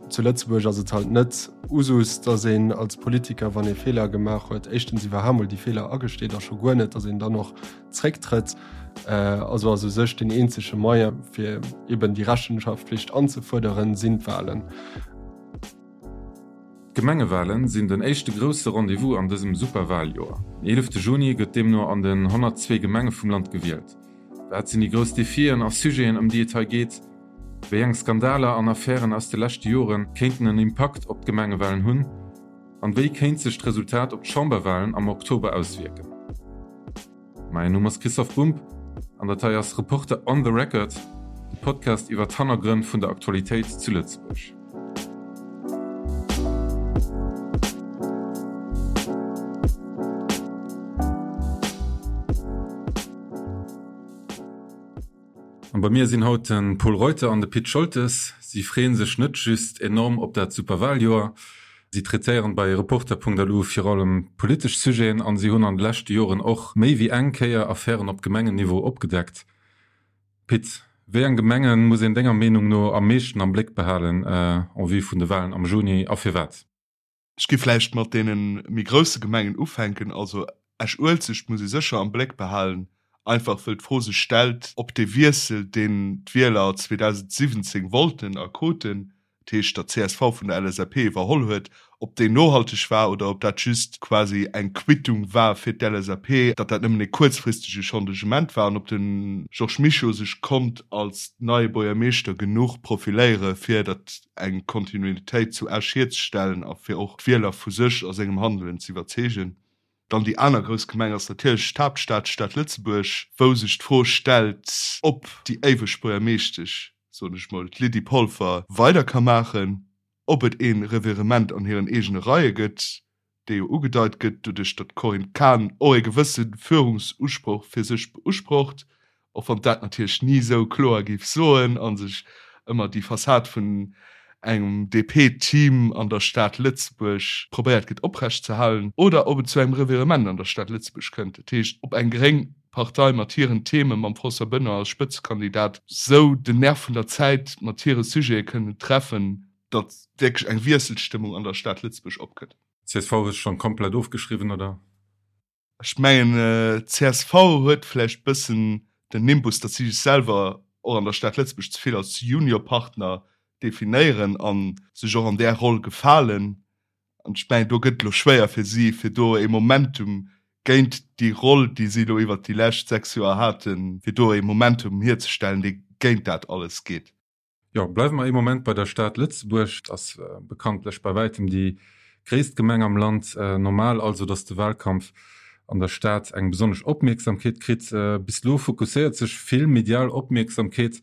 Zu Lëtzebuerg ass et halt net Usus, datt een als Politiker, wann ee Feeler gemaach huet, éischtens iwwerhaapt mol déi Feeler agesteet a scho guer net, datt een dann och zrécktrëtt. Also ass u sech deen eenzege Moyen, fir eben déi Rechenschaftpflicht anzefuerderen, sinn d'Wahlen. D'Gemengewahlen sinn den éischte grousse Rendez-vous an dësem Superwahljoer. Den 11 Juni gëtt deemno an den 102 Gemenge vum Land gewielt. Wat sinn déi grouss Defien a Sujeten, ëm déi et hei geet? Wéi eng Skandaler an Affären aus de leschte Jore kéinten en Impakt op d'Gemengewalen hunn? An wéi kéint sech d'Resultat op d'Chamberwalen am Oktober auswierken? Mäin Numm ass Christoph Bumb an dat hei ass Reporter on the Record, de Podcast iwwer d'Hannergrënn vun der Aktualitéit zu Lëtzebuerg. An bei mir sinn haut de Pol Reuter an de Pit Scholtes. Si freeën sech net just enorm op dat super Wahljoer, si traitéieren bei Reporter.lu vir allem politesch Sujeten an si hunn an de leschte Joren och méi wéi eng Kéier Affären op Gemengenniveau opgedeckt. Pit, wéi eng Gemengen muss een denger Meenung no am meeschten am Bléck behalen en vue vun de Wahlen am Juni a firwat? Ech gi vläicht mat deene méi grousse Gemengen ufänken. Also Esch-Uelzecht muss ee sécher am Bléck behalen, einfach wëll d'Fro sech stellt, ob dee Wiessel, deen d'Wieler 2017 wollten a kruten, dat heescht datt csv vun der LSAP iwwerholl huet, ob deen nohalteg war oder ob dat just quasi eng Quittung war fir d'LSAP, datt dat nëmmen e kuerzfristege Changement war an ob de Georges Mischo sech konnt als neie Buergermeeschter genuch profiléiere fir datt eng Kontinuitéit zu Esch hierzestellen a fir och d'Wieler vu sech a sengem Handelen ze iwwerzeegen. Dann déi aner grouss Gemeng ass natierlech d'Haaptstad, d'Stad Lëtzebuerg, wou sech d'Fro stellt, ob déi éiweg Buergermeeschtesch, soen ech mol, d'Lydie Polfer, weider ka maachen, ob et ee Revirement an hiren eegene Reie gëtt, dee jo ugedeit gëtt doduerch, datt d'Corinne Cahen och ee gewësse Führungsusproch fir sech beusprocht, och wann dat natierlech ni esou kloer géif soen a sech ëmmer déi Fassad vun engem DP-Team an der Stad Lëtzebuerg probéiert gëtt oprecht ze halen, oder ob et zu engem Revirement an der Stad Lëtzebuerg kënnt, dat heescht, ob eng gréng Partei mat hiren Themen, mam François Benoy als Spëtzekandidat, sou den Nerv vun der Zäit mat hire Sujete kënnen treffen, datt wierklech eng Wiesselstëmmung an der Stad Lëtzebuerg opkënnt. Csv hues schonn komplett ofgeschriwwen, oder? Ech mengen csv huet vläicht bëssen den Nimbus, datt si sech selwer och an der Stad Lëtzebuerg ze vill als Juniorpartner definéieren a sech och an där Roll gefalen. An ech mengen do gëtt et elo schwéier fir si, fir do ee Momentum géint déi Roll, déi si elo iwwert déi lescht 6 Joer haten, fir do ee Momentum hierzestellen, dee géint dat alles geet. Jo, bleiwe mer ee Moment bei der Stad Lëtzebuerg. Et ass bekanntlech bei wäitem déi gréisst Gemeng am Land. Normal also, datt de Wahlkampf an der Stad eng besonnesch Opmierksamkeet kritt. Bis elo fokusséiert sech vill medial Opmierksamkeet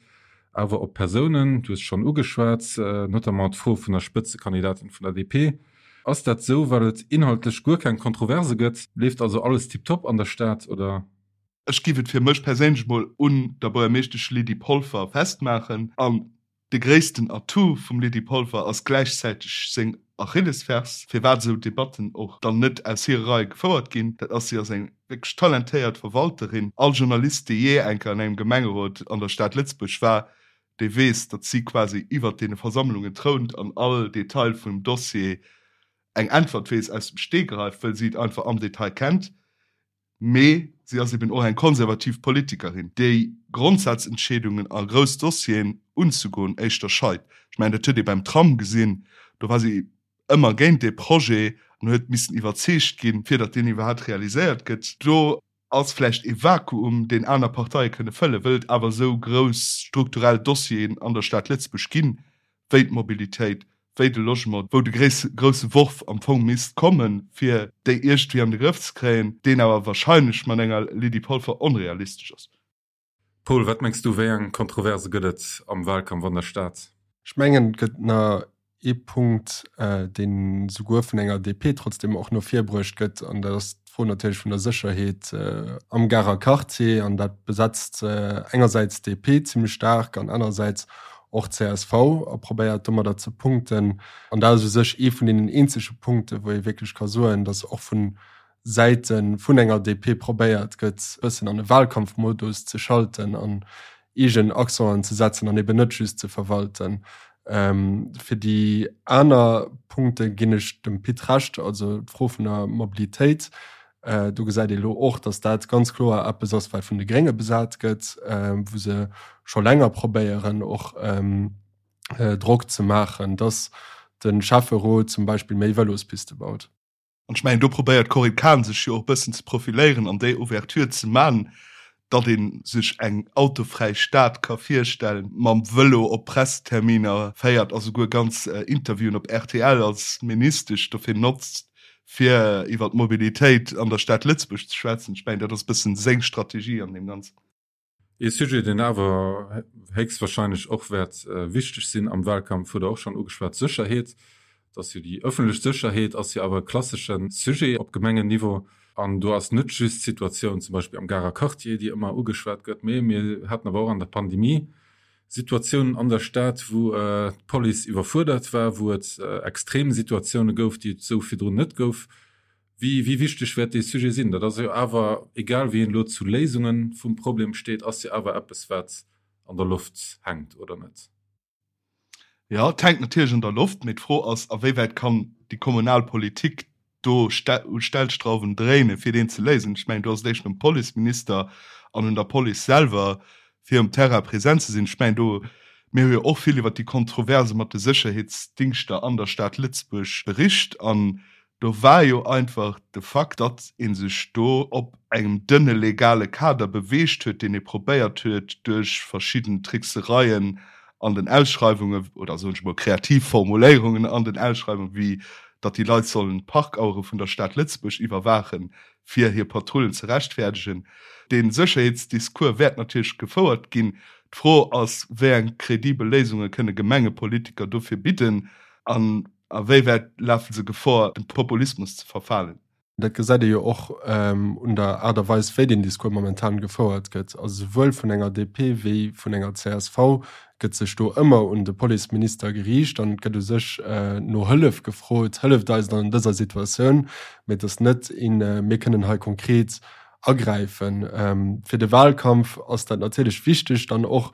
awer op Persounen. Du hues schonn ugeschwat, notamment d'Fro vun der Spëtzekandidatin vun der DP. Ass dat esou, well et inhaltlech guer keng Kontroverse gëtt? Leeft also alles tiptop an der Stad, oder? Ech giff et fir mech perséinlech mol un der Buergermeeschtesch Lydie Polfer festmaachen. An de gréissten Atout vum Lydie Polfer ass gläichzäiteg seng Achillesfers, firwat esou Debatten och dann net aus hire Reie gefouert ginn. Dat ass, si ass eng wierklech talentéiert Verwalterin. All Journalist, dee jee eng Kéier an engem Gemengerot an der Stad Lëtzebuerg war, dee weess, datt si quasi iwwert deene Versammlungen trount an all Detail vum Dossier eng Äntwert weess aus dem Stegreif, wëll si et einfach am Detail kennt. Mee si ass eben och eng konservativ Politikerin, déi Grondsazentscheedungen a grouss Dossieren unzegoen éischter scheit. Ech mengen, dat huet ee beim Tram gesinn, do war si ëmmer géint dee Projet an huet missen iwwerzeegt ginn, fir datt deen iwwerhaapt realiséiert gëtt. Do ass vläicht ee Vakuum, deen aner Parteie kënne fëllen, wëll et awer esou grouss strukturell Dossieren an der Stad Lëtzebuerg ginn, wéi d'Mobilitéit, wéi de Logement, wou de grousse Worf am Fong misst kommen, fir déi iergendwéi an de Grëff ze kréien, deen awer wahrscheinlech mat enger Lydie Polfer onrealistesch ass. Paul, wat mengs du, wéi eng Kontroverse gëtt et am Wahlkampf an der Stad? Ech mengen, et gëtt nach ee Punkt, deen souguer vun enger DP trotzdem och no vir bruecht gëtt, an dat ass d'Fro natierlech vun der Sécherheet am Garer Quartier. An dat besetzt engersäits d'DP zimmlech staark an anerersäits och csv a probéiert domadder ze punkten. An dat ass u sech ee vun deenen eenzege Punkten, wou ee wierklech ka soen, datt och vu Säite vun enger DP probéiert gëtt, e bëssen an e Wahlkampfmodus ze schalten an eegen Accenten ze setzen an eben net just ze verwalten. Fir déi aner Punkte ginn ech dem Pit Recht, also d'Fro vun der Mobilitéit, do gesäit ee elo och, datt dat ganz kloer eppes ass, wat vun de Grénge besat gëtt, wou se scho länger probéieren och Drock ze maachen, datt de Schäfferot zum Beispill méi Vëlospiste baut. An ech mengen, do probéiert d'Corinne Cahen sech jo och e bëssen ze profiléieren an déi Ouverture ze man, datt ee sech eng autofräi Stad ka virstellen, mam Vëlo op Presseterminer féiert a souguer ganz Interviewen op rtl als Ministesch dofir notzt, fir iwwer d'Mobilitéit an der Stad Lëtzebuerg ze schwätzen. Ech mengen, dat ass e bëssen seng Strategie an deem Ganzen. Ee Sujet, deen awer héchstwahrscheinlech och wäert wichteg sinn am Wahlkampf, hutt Der och schonn ugeschwat, d'Sécherheet. Et ass jo déi ëffentlech Sécherheet ass jo awer e klassesche Sujet op Gemengenniveau. An do ass net just d'Situatioun zum Beispill am Garer Quartier, déi ëmmer ugeschwat gëtt, mee mir haten awer och an der Pandemie Situatiounen an der Stad, wou d'Police iwwerfuerdert war, wou et extrem Situatioune gouf, déi et esou virdrun net gouf. Wéi wéi wichteg wäert dee Sujet sinn? Dat ass jo awer, egal wéi een elo zu Léisunge vum Problem steet, ass jo awer eppes, wat an der Loft hänkt, oder net? Jo, et hänkt natierlech an der Loft, mee d'Fro ass, a wéi wäit kann déi kommunal Politik do u Stellstrauwen dréinen, fir deen ze léisen. Ech mengen, do ass et éischter um Policeminister an un der Police selwer, fir um Terrain present ze sinn. Ech mengen, do, mir hu jo och vill iwwert déi Kontroverse mat de Sécherheetsdingschter an der Stad Lëtzebuerg bericht an Do war jo einfach de Fakt, datt ee sech do op engem dënne legale Kader beweegt huet, deen ee probéiert huet duerch verschidden Tricksereien an den Ausschreiwungen, oder soen ech emol kreativ Formuléierungen an den Ausschreiwungen, wéi datt déi Leit sollen d'Parkauere vun der Stad Lëtzebuerg iwwerwaachen, fir hir Patrullen ze rechtfäerdegen. Dee Sécherheetsdiscours wäert natierlech gefouert ginn. D'Fro ass, wéi eng kredibel Léisunge kënne Gemengepolitiker dofir bidden? An A wéi wäit lafe se Gefor, dem Populismus ze verfalen? Dat gesäit ee jo och un der Aart a Weis, wéi deen Discours momentan gefouert gëtt. Also souwuel vun enger DP wéi vun enger csv gëtt sech do ëmmer un de Policeminister geriicht an et gëtt u sech no Hëllef gefrot, Hëlleft eis an dëser Situatioun. Mee et ass net een, mir kënnen hei konkret agräifen. Fir de Wahlkampf ass dat natierlech wichteg, dann och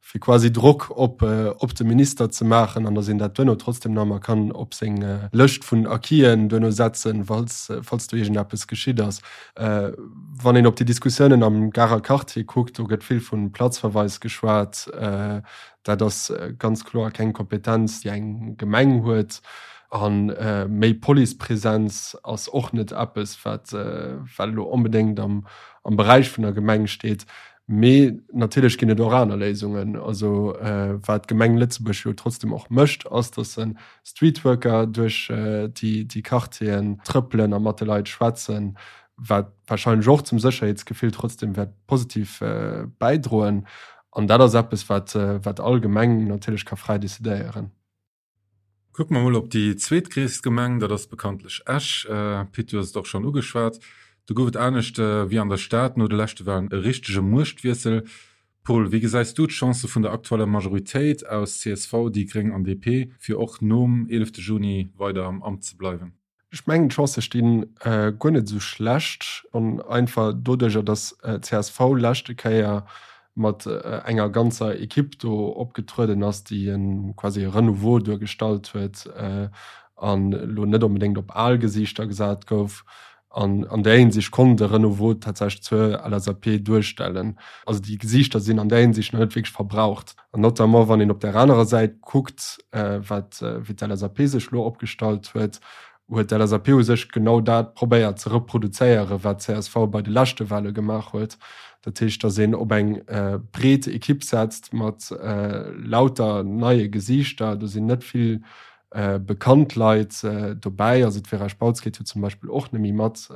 fir quasi Drock op op de Minister ze maachen an datt een dat duerno trotzdem nach emmer kann op seng Lëscht vun Acquisen duerno setzen, falls falls do iergendeppes geschitt ass. Wann een op déi Diskussiounen am Garer Quartier kuckt, do gëtt vill vu Platzverweis geschwat. Dat ass ganz kloer keng Kompetenz, déi eng Gemeng huet. A méi Policepresenz ass och net eppes, wat wat elo onbedéngt am am Beräich vun der Gemeng steet. Mee natierlech ginn et och aner Léisungen. Also wat d'Gemeng Lëtzebuerg jo trotzdem och mécht, ass, datt se Streetworker duerch déi Quartieren trëppelen a mat de Leit schwätzen, wat warscheinlech och zum Sécherheetsgefill trotzdem wäert positiv bäidroen. An dat ass eppes, wat all Gemeng natierlech ka fräi decidéieren. Kucke mer mol op déi zweetgréisst Gemeng, dat ass bekanntlech Esch. Pit, du hues et och schonn ugeschwat, do gouf et anescht wéi an der Stad no de leschte Walen e richtege Muechtwiessel. Paul, wéi gesäis du d'Chancë vun der aktueller Majoritéit aus csv, déi gréng an DP, fir och nom 11 Juni weider am Amt ze bleiwen? Ech mengen d'Chancë sti guer net esou schlecht, schonn einfach doduercher, datt csv leschte Kéier mat enger ganzer Ekipp do opgetrueden ass, déi e quasi e Renouveau duergestallt huet an elo net onbedéngt op al Gesiichter gesat gouf. An an där Hinsicht konnt e Renouveau tatsächlech zur LSAP duerstellen. Also déi Gesiichter sinn an där Hinsicht nach net wierklech verbraucht. An notamment wann een op där anerer Säit kuckt, wat wéi d'LSAP sech elo opgestallt huet, huet d'LSAP u sech genau dat probéiert ze reproduzéieren, wat csv bei de leschte Wahle gemaach huet. Dat heescht, datt een op eng breet Ekipp setzt mat lauter neie Gesiichter. Do sinn net vill bekannt Leit dobäi. Also d'Vera Spautz geet jo zum Beispill och net méi mat.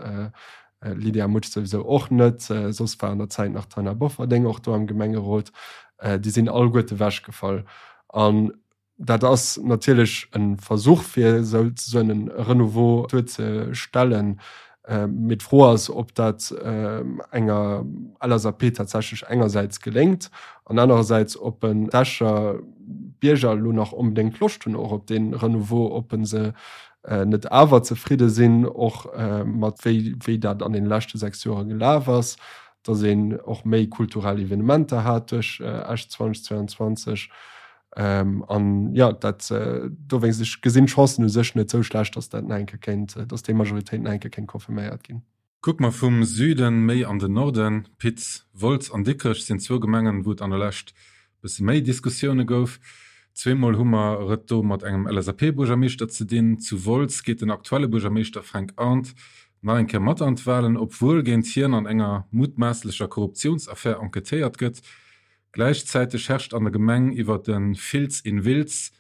Lydia Mutsch souwisou och net, soss war an der Zäit nach d'Taina Bofferding och do am Gemengerot. Déi sinn alleguerte wechgefall. An dat ass natierlech e Versuch, fir souzesoen e Renouveau duerzestellen. Mee d'Fro ass, ob dat enger LSAP tatsächlech engersäits geléngt an anerersäits, ob en d'Escher Bierger elo nach onbedéngt Loscht hunn och op dee Renouveau, ob se net awer zefridde sinn, och mat wéi wéi dat an deene leschte 6 Joere gelaf ass, datt een och méi kulturell Evenementer hat duerch Esch 2022. An jo, dat dowéinst, ech gesinn d'Chancen u sech net esou schlecht, datt dat nach eng Kéier kéint, datt déi Majoritéit nach eng Kéier kéint confirméiert ginn. Kucke mer vum Süden méi an den Norden, Pit, Wolz an Dikrech sinn zwou Gemengen, wou et an der Lescht bësse méi Diskussioune gouf. Zweemol hu mer et do mat engem LSAP-Buergermeeschter ze dinn. Zu Wolz geet den aktuelle Buergermeeschter Fränk Arndt nach eng Kéier mat an d'Walen, obwuel géint hien an enger mutmaasslecher Korruptiounsaffär enquêtéiert gëtt. Gläichzäiteg herrscht an der Gemeng iwwer de Filz in Wiltz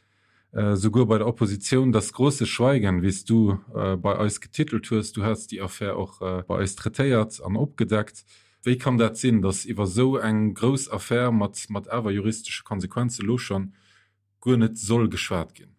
souguer bei der Oppositioun das große Schweigen, wéi s du bei eis getitelt hues. Du has déi Affär och bei eis traitéiert an opgedeckt. Wéi kann dat sinn, datt iwwer esou eng grouss Affär mat mat awer juristesche Konsequenze lo schonn guer net soll geschwat ginn?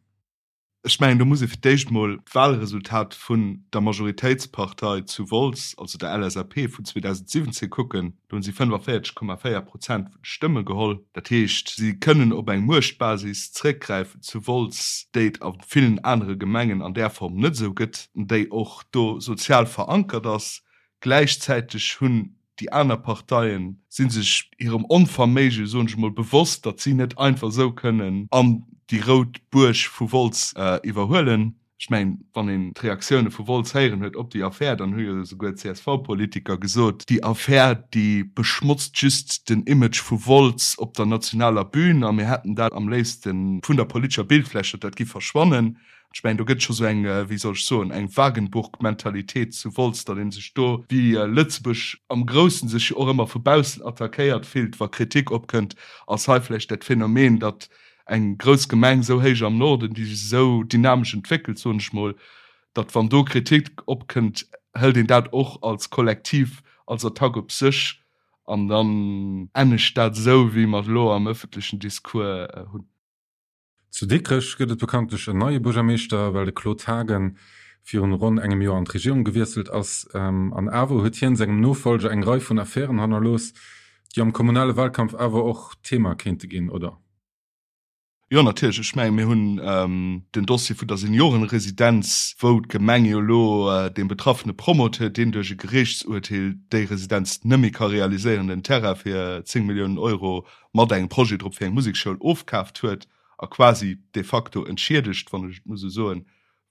Ech mengen, do muss ee fir d'éischt mol d'Wahlresultat vun der Majoritéitspartei zu Wolz, also der LSAP, vun 2017 kucken. Do hunn si 45,4 Prozent vun de Stëmme geholl. Dat heescht, si kënnen op eng Muechtbasis zréckgräifen zu Wolz, déi et a villen anere Gemengen an där Form net esou gëtt, déi och do sozial verankert ass. Gläichzäiteg hunn déi aner Parteien si sech hirem Onverméige, soen ech emol, bewosst, datt si net einfach esou kënnen an déi rout Buerg vu Wolz iwwerhuelen. Ech mengen, wann een d'Reaktioune vu Wolz héieren huet op déi Affär, dann hu jo esouguer d'CSV-Politiker gesot, déi Affär, déi beschmotzt just den Image vu Wolz op der nationaler Bühn a mir hätten dat am léifste vun der politescher Bildfläch, datt dat giff verschwannen. Ech mengen, do gëtt scho sou eng, wéi soll ech soen, eng Wagenburg-Mentalitéit zu Wolz, datt ee sech do, wéi Lëtzebuerg am Groussen sech jo och ëmmer vu baussen attackéiert fillt, wa Kritik opkënnt, ass hei vläicht dat Phänomen, datt eng grouss Gemeng esou héich am Norden, déi sech esou dynamesch entwéckelt, soen ech mol, datt wann do Kritik opkënnt, hëlt een dat och als Kollektiv als Attack op sech an dann ennegt dat esou, wéi mer et elo am ëffentlechen Discours hunn. Zu Dikrech gëtt et bekanntlech en neie Buergermeeschter, well de Claude Haagen virun ronn engem Joer an d'Regierung gewiesselt ass. An awer huet hien sengem Nofollger eng Rei vun Affären hannerlooss, déi am kommunale Wahlkampf awer och Thema kéinte ginn, oder? Jo, natierlech. Ech mengen, mir hunn den Dossier vun der Seniorenresidenz, wou d'Gemeng jo elo deem betraffene Promoteur, deen duerch e Geriichtsurteel déi Residenz net méi ka realiséieren, den Terrain fir 10 Milliounen Euro mat engem Projet drop fir eng Musekschoul ofkaaft huet a quasi de facto entschiedegt, wann ech et muss esou soen,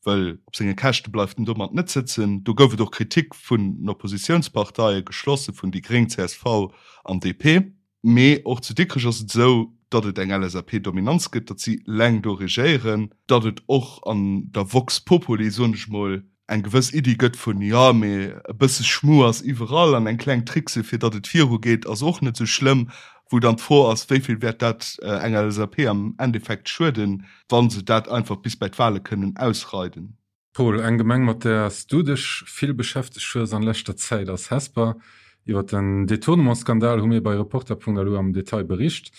well op senge Käschte bleift en domat net sëtzen. Do gouf et och Kritik vun den Oppositiounsparteie, geschlosse vun déi Gréng, csv an DP. Mee och zu Dikrech ass et esou, datt et eng LSAP-Dominanz gëtt, datt si eleng do regéieren, datt et och an der Vox Populi, soen ech mol, eng gewëss Iddi gëtt vun, jo, mee e bësse Schmu ass iwwerall an eng kleng Trickse fir datt et virugeet ass och net esou schlëmm, wou dann d'Fro ass, wéi vill wäert dat enger LSAP am Endeffekt schueden, wa se dat einfach bis bei d'Wahle kënnen ausreiden. Paul, eng Gemeng mat där s du dech vill beschäftegt hues an leschter Zäit ass Hesper. Iwwer den Detournementsskandal hu mir bei Reporter.lu am Detail bericht.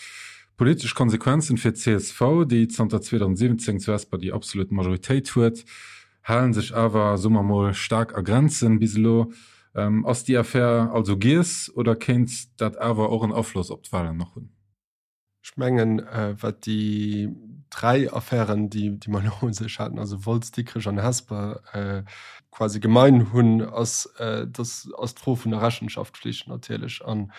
Politesch Konsequenzen fir d'CSV, déi zanter 2017 zu Hesper déi absolut Majoritéit huet, Halen sech awer, soe mer mol, staark a Grenzen bis elo. Ass déi Affär also giess oder kéint dat awer och en Afloss op d'Walen nach hunn? Ech mengen, wat déi 3 Affären, déi mer elo u sech haten, also Wolz, Dikrech an Hesper, quasi gemein hunn, ass, dass ass d'Fro vun der Rechenschaftflicht natierlech. An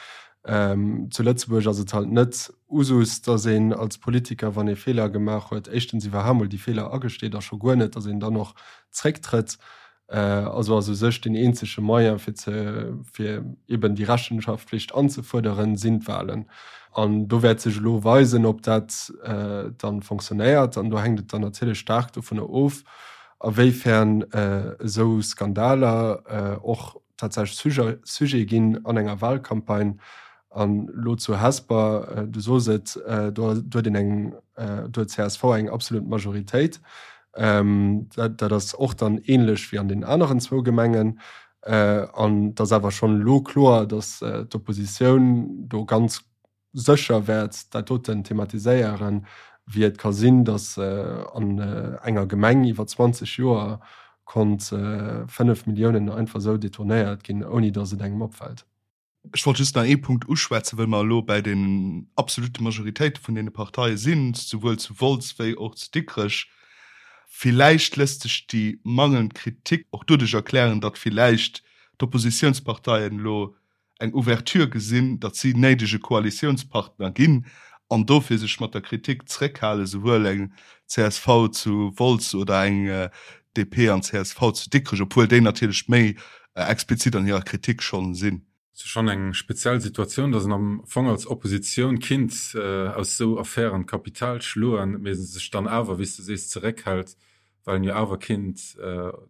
zu Lëtzebuerg ass et halt net Usus, datt een als Politiker, wann ee Feeler gemaach huet, éischtens iwwerhaapt mol déi Feeler agesteet a scho guer net, datt een dann och zrécktrëtt. Also ass u sech deen eenzege Moyen, fir ze, fir eben déi Rechenschaftpflicht anzefuerderen, sinn d'Wahlen. An do wäert sech elo weisen, ob dat dann fonctionnéiert. An do hänkt et dann natierlech staark dovunner of, awéifern esou Skandaler och tatsächlech Sujet ginn an enger Wahlcampagne. An elo zu Hesper, du sos et, do huet een eng, do huet csv eng absolut Majoritéit. Dat ass och dann ähnlech wéi an den aneren zwou Gemengen. An et ass awer schonn elo kloer, datt d'Oppositioun do ganz sécher wäert dat doten thematiséieren, wéi et ka sinn, datt an enger Gemeng iwwer 20 Joer konnt 5 Milliounen einfach esou detournéiert ginn, ouni datt et engem opfält. Ech wollt just nach ee Punkt uschwätzen, well mer elo bäi den absolute Majoritéite vun deene Parteie sinn, souwuel zu Wolz wéi och zu Dikrech. Villäicht léisst sech déi mangelnd Kritik och doduerch erklären, datt villäicht d'Oppositiounsparteien elo eng Ouverture gesinn, datt si néidege Koalitiounspartner ginn. An dofir sech mat der Kritik zréckhalen, souwuel eng csv zu Wolz oder eng DP an csv zu Dikrech, obwuel déi natierlech méi explizit an hirer Kritik schonn sinn. Et ass schonn eng speziell Situatioun, datt een am Fong als Oppositioun kinnt aus esou Affären Kapital schloen, mee sech dann awer, wéi s de sees, zeréckhält, well een jo awer kinnt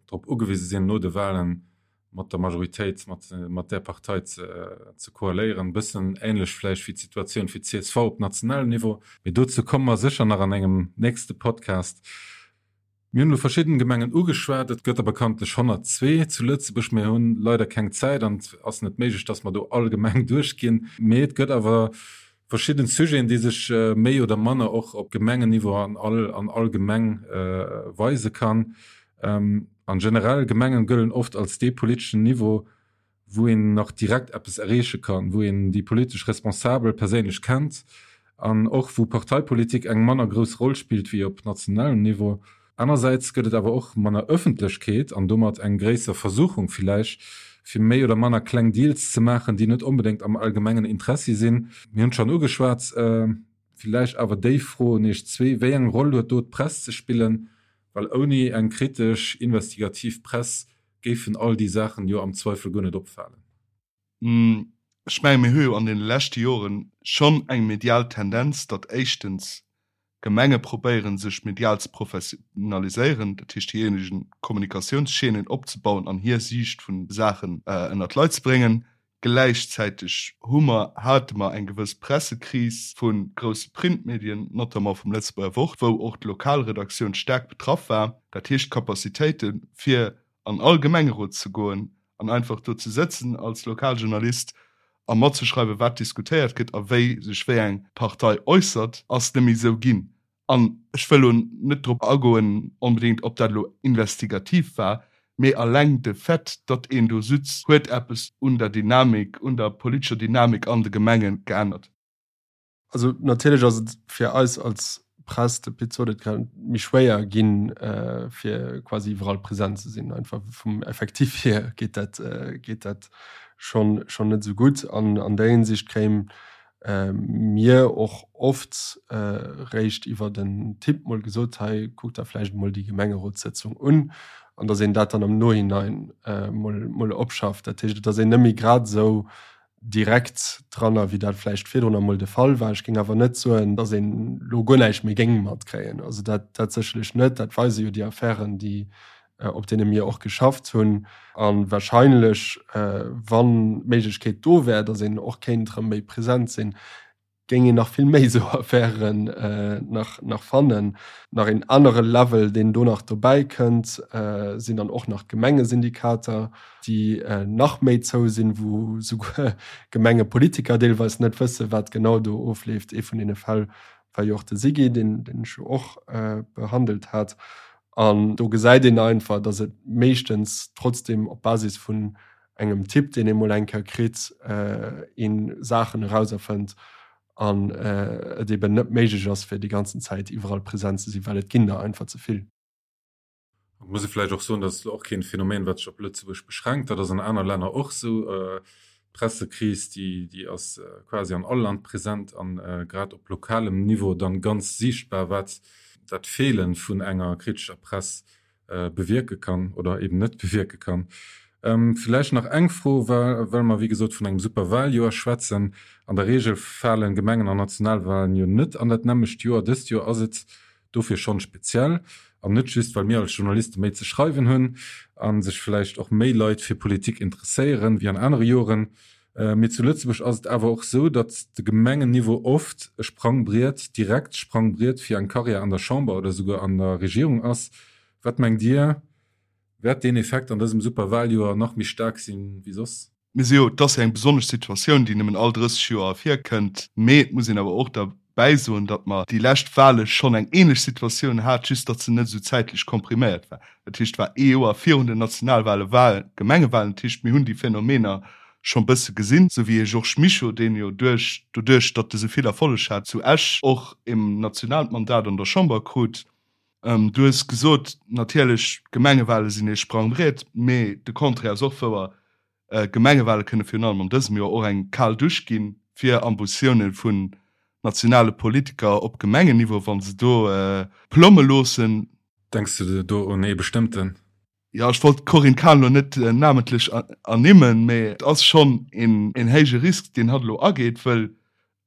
drop ugewise sinn, no de Wahlen mat der Majoritéit, mat där Partei ze koaléieren. E bëssen änlech vläicht wéi d'Situatioun fir d'CSV op nationalem Niveau. Mee dozou komme mer sécher nach an engem nächste Podcast. Mir hunn elo verschidden Gemengen ugeschwat. Et gëtt der bekanntlech 102 zu Lëtzebuerg. Mir hunn leider keng Zäit an et ass net méiglech, dass mer do all Gemeng duerchginn. Mee et gëtt awer verschidden Sujeten, déi sech méi oder manner och op Gemengenniveau an all an all Gemeng weise kann. An generell, Gemengen gëllen oft als dee politeschen Niveau, wou een nach direkt eppes erreeche kann, wou een déi politesch Responsabel perséinlech kennt an och wou Parteipolitik eng manner grouss Roll spillt wéi op nationalem Niveau. Anersäits gëtt et awer och manner Ëffentlechkeet an domat eng gréisser Versuchung villäicht, fir méi oder manner kleng Deals ze maachen, déi net onbedéngt am allgemengen Interessi sinn. Mir hunn et schonn ugeschwat, villäicht awer déi Fro un Iech zwee, Wéi eng Roll huet do d'Press ze spillen? Well ouni eng kritesch, investigativ Press géifen all déi Saachen jo am Zweifel guer net opfalen. Ech menge mir hu jo an deene leschte Joren schonn eng medial Tendenz, datt éischtens Gemenge probéieren, sech medial ze professionaliséieren, dat heescht hir eegen Kommunikatiounschaînen opzebauen an hir Siicht vun de Saachen ënnert d'Leit ze bréngen. Gläichzäiteg hu mer, hate mer eng gewëss Pressekris vu grousse Printmedien, notamment vum Lëtzebuerger Wort, wou och d'Lokalredaktioun staark betraff war. Dat heescht, d'Capacitéite fir an all Gemengerot ze goen an einfach do ze sëtzen als Lokaljournalist a matzeschreiwen, wat diskutéiert gëtt a wéi sech wéi eng Partei äussert, ass net méi esou ginn. An ech wëll elo net drop agoen onbedéngt, ob dat elo investigativ war, mee alleng de Fait, datt een do sutz, huet eppes un der Dynamik, un der politescher Dynamik an de Gemenge geännert. Also natierlech ass et fir eis als Press, de Pit sot et grad, méi schwéier ginn, fir quasi iwwerall present ze sinn. Einfach vum Effectif hier geet dat, geet dat schonn, schonn net esou gutt. An an där Hinsicht kréie mir och oft réischt iwwert en Tipp mol gesot, hei kuckt der vläicht emol déi Gemengerotssëtzung un, an datt een dat dann am Nohinein mol, mol opschafft. Dat heescht, et ass een net méi grad esou direkt dranner, wéi dat vläicht virdrun emol de Fall war. Ech géing awer net soen, datt een elo guer näischt méi géing matkréien. Also dat, dat sécherlech net. Dat weise jo déi Affären, déi, op deene mir och geschafft hunn. A wahrscheinlech, wann d'Méiglechkeet do wär, datt een och kéint erëm méi present sinn, géing een nach vill méi esou Affären nach, nach fannen. Nach een anere Level, deen do nach dobäi kënnt, sinn dann och nach d'Gemengesyndikater, déi nach méi zou sinn, wou souguer Gemengepolitiker deelweis net wëssen, wat genau do ofleeft. Ee vun deene Fäll war jo och de Sigi, deen, deen ech jo och behandelt hat. An do gesäit een einfach, datt et meeschtens trotzdem op Basis vun engem Tipp, deen ee mol eng Kéier kritt, ee Saachen erauserfënnt an et eben net méiglech ass, fir déi ganzen Zäit iwwerall present ze sinn, well et ginn der einfach ze vill. Et muss ee vläicht och soen, dat ass elo och keen Phänomen, wat sech op Lëtzebuerg beschränkt, dat ass an aner Länner och esou. D'Pressekris, déi, déi ass quasi an all Land present an grad op lokalem Niveau dann ganz siichtbar, wat dat Feelen vun enger kritescher Press bewierke kann oder eben net bewierke kann. Villäicht nach eng Fro, well mer wéi gesot vun engem Superwaljoer schwätzen. An der Reegel falen Gemengen an Nationalwalen jo net an dat nämmlecht Joer. Dëst Joer ass et dofir schonn speziell. An net just, well mir als Journaliste méi ze schreiwen hunn a sech villäicht och méi Leit fir Politik interesséieren wéi an anere Joren. Mee zu Lëtzebuerg ass et awer och sou, datt de Gemengenniveau oft e Sprangbriet, direkt Sprangbriet fir eng Karriär an der Chamber oder souguer an der Regierung ass. Wat mengt Dir, wäert deen Effekt an dësem Superwaljoer nach méi staark sinn wéi soss? Mir si jo, et ass jo eng besonnesch Situatioun, déi nëmmen all 30 Joer virkënnt, mee et muss een awer och derbäi soen, datt mer déi lescht Wale schonn eng ähnlech Situatioun hat, just datt se net esou zäitlech kompriméiert war. Dat heescht, et war ee Joer virun den Nationalwale war Gemengewalen. Dat heescht, mir hunn déi Phänomener schonn bësse gesinn, esou wéi ee Georges Mischo, deen jo duerch, doduerch datt e sou vill Erfolleg hat zu Esch, och e nationaalt Mandat an der Chamber krut. Du hues gesot, natierlech, d'Gemengewale sinn ee Sprangbriet, mee de Contraire ass och wouer. D'Gemengewale kënne virun allem an dësem Joer och eng kal Dusch gi fir Ambitioune vun. nationale Politiker op Gemengenniveau, wa se do plomme loossen. Denks de do un ee bestëmmten? Jo, ech wollt d'Corinne Cahen elo net namentlech ernimmen, mee et ass schonn een héije Risk, deen hatt elo ageet, wëll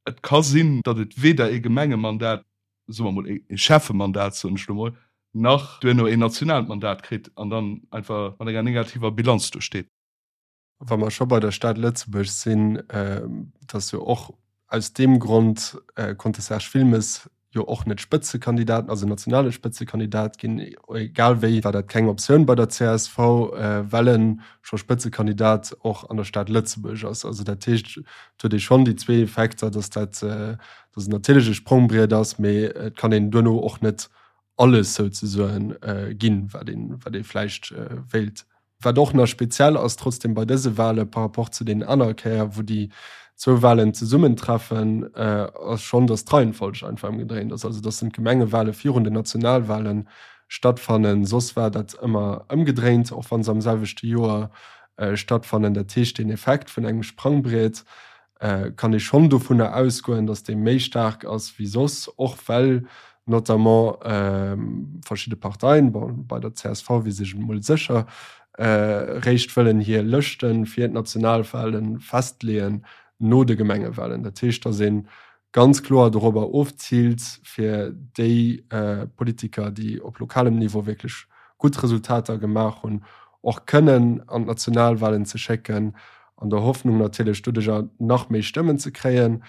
et ka sinn, datt et weder ee Gemengemandat, soe mer mol ee Schäffemandat, soen ech elo mol, nach duerno een nationaalt Mandat kritt an dann einfach mat enger negativer Bilanz do steet. Wa mer scho bei der Stad Lëtzebuerg sinn, et ass jo och aus deem Grond konnt de Serge Wilmes jo och net Spëtzekandidat, also nationale Spëtzekandidat ginn. Egal wéi war dat keng Optioun bei der csv, well e scho Spëtzekandidat och an der Stad Lëtzebuerg ass. Also dat heescht, et huet ee schonn déi zwee Effekter, datt dat, datt et natierlech e Sprongbriet ass, mee et kann een duerno och net alles souzesoen ginn, wat een, wat ee vläicht wéilt. Wat och nach speziell ass trotzdem bei dëse Wahle par rapport zu deenen anere Kéier, wou déi zwou Wahlen zesummentreffen, ass schonn, datt d'Reihenfolg einfach ëmgedréint ass, also datt d'Gemengewahle virun den Nationalwahle stattfannen. Soss war dat ëmmer ëmgedréint, och wa se am selwechte Joer stattfannen. Dat heescht, deen Effekt vun engem Sprangbriet kann ee schonn dovunner ausgoen, datt dee méi staark ass wéi soss, och well notamment verschidde Parteien, bon bei der csv weess ech et emol sécher, réischt wëllen hir Lëschte fir d'Nationalwale festleeën no de Gemengewalen. Dat heescht, datt ee ganz kloer dorobber ofziilt, fir déi Politiker, déi op lokalem Niveau wierklech gutt Resultater gemaach hunn, och kënnen an d'Nationalwalen ze schécken an der Hoffnung natierlech doduercher nach méi Stëmmen ze kréien.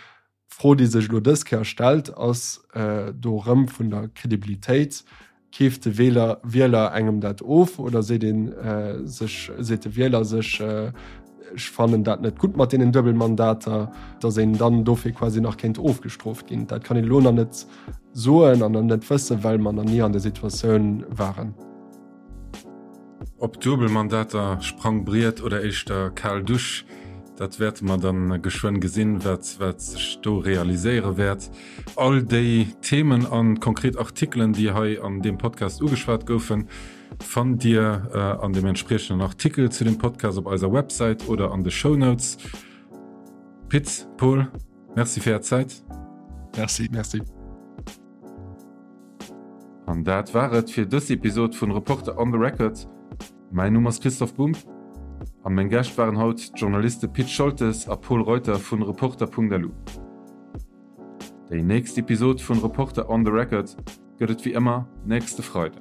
D'Fro, déi sech elo dës Kéier stellt, ass do erëm vun der Kredibilitéit. Keeft de Wieler, Wieler engem dat of oder seet ee sech, seet de Wieler sech, ech fannen dat net gutt mat deenen Duebelmandater, datt een dann dofir quasi nach kéint ofgestrooft ginn? Dat kann een elo nach net soen an nach net wëssen, well mer nach ni an där Situatioun waren. Ob Duebelmandater, Sprangbriet oder éischter kal Dusch, dat wäerte mer dann geschwënn gesinn, wat wat sech do realiséiere wäert. All déi Themen an konkret Artikelen, déi hei an deem Podcast ugeschwat goufen, fannt Dir an dem entspriechenden Artikel zu dem Podcast op eiser Websäit oder an de Shownotes. Pit, Paul, Merci fir Är Zäit. Merci. Merci. An dat war et fir dës Episod vun Reporter on the Record. Mäin Numm ass Christoph Bumb a meng Gäscht waren haut d'Journaliste Pit Scholtes a Pol Reuter vun Reporter.lu. Déi nächst Episod vun Reporter on the Record gëtt et wéi ëmmer nächste Freiden.